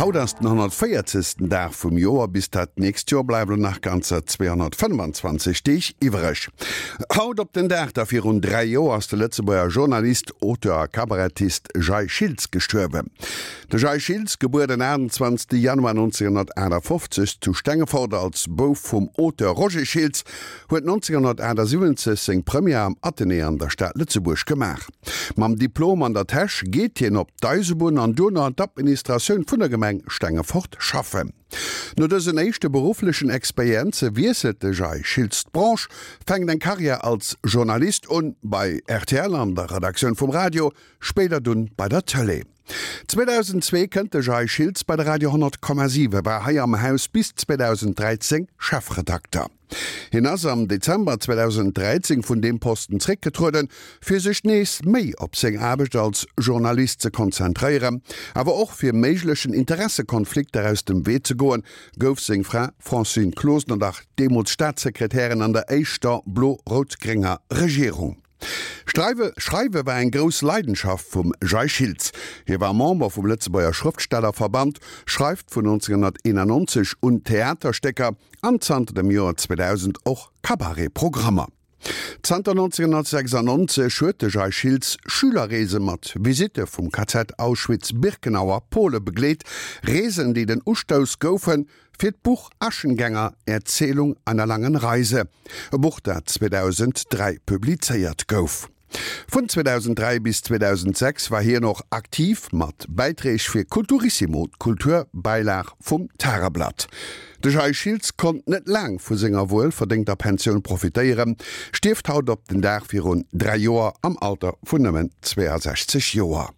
Haut ass den 140. Dag vum Joer, bis dat nächst Joer bleiwen nach ganzer 225 Deeg iwwereg. Haut op den Dag da virun 3 Joer ass de Lëtzebuerger Journalist, Auteur a Kabarettist Jay Schiltz gestuerwen. De Jay Schiltz, gebuer den 28 Januar 1958 zu Stengefort als Bouf vum Auteur Roger Schiltz, huet 1978 seng Première am Athenée an der Stad Lëtzebuerg gemaach. Mam Diplom an der Täsch geet hien op d'Eisebunn an duerno an d'Administratioun vun der Gemeng Stengefort schaffen. No dësen éischte berufflechen Experienze wiesselt de Jay Schiltz d'Branche, fänkt eng Karriär als Journalist un, bei rtl an der Redaktioun vum Radio, spéider dunn bei der Tëlee. 2002 kënnt de Jay Schiltz bei de Radio 100,7, war hei am Haus bis 2013 Chefredakter. Hien ass am Dezember 2013 vun deem Posten zréckgetrueden, fir sech nees méi op seng Aarbecht als Journalist ze konzentréieren. Awer och fir méiglechen Interessekonflikter aus dem Wee ze goen, gouf seng Fra Francine Closener, dach deemools Staatssekretärin an der éischter blo-rout-grénger Regierung. Streiwe Schreiwe war eng grouss Leidenschaft vum Jay Schiltz. Hie war Member vum Lëtzebuerger Schrëftstellerverband, schreift vun 1991 un Theaterstécker an zanter dem Joer 2000 och Cabaret-Programmer. Zanter 1996 huet de Jay Schiltz Schülerreese mat Visitte vum KZ Auschwitz-Birkenau a Pole begleet, Reesen, déi den Ustouss goufen fir d'Buch Aschengänger, Erzählung einer langen Reise, e Buch dat 2003 publizéiert gouf. Vun 2003 bis 2006 war hien och aktiv mat Bäiträg fir Kulturissimo, d'Kulturbäilag vum Tageblatt. De Jay Schiltz konnt net laang vu senger wuel verdéngter Pensioun profitéieren, stierft haut op den Dag virun 3 Joer am Alter vun nëmmen 62 Joer.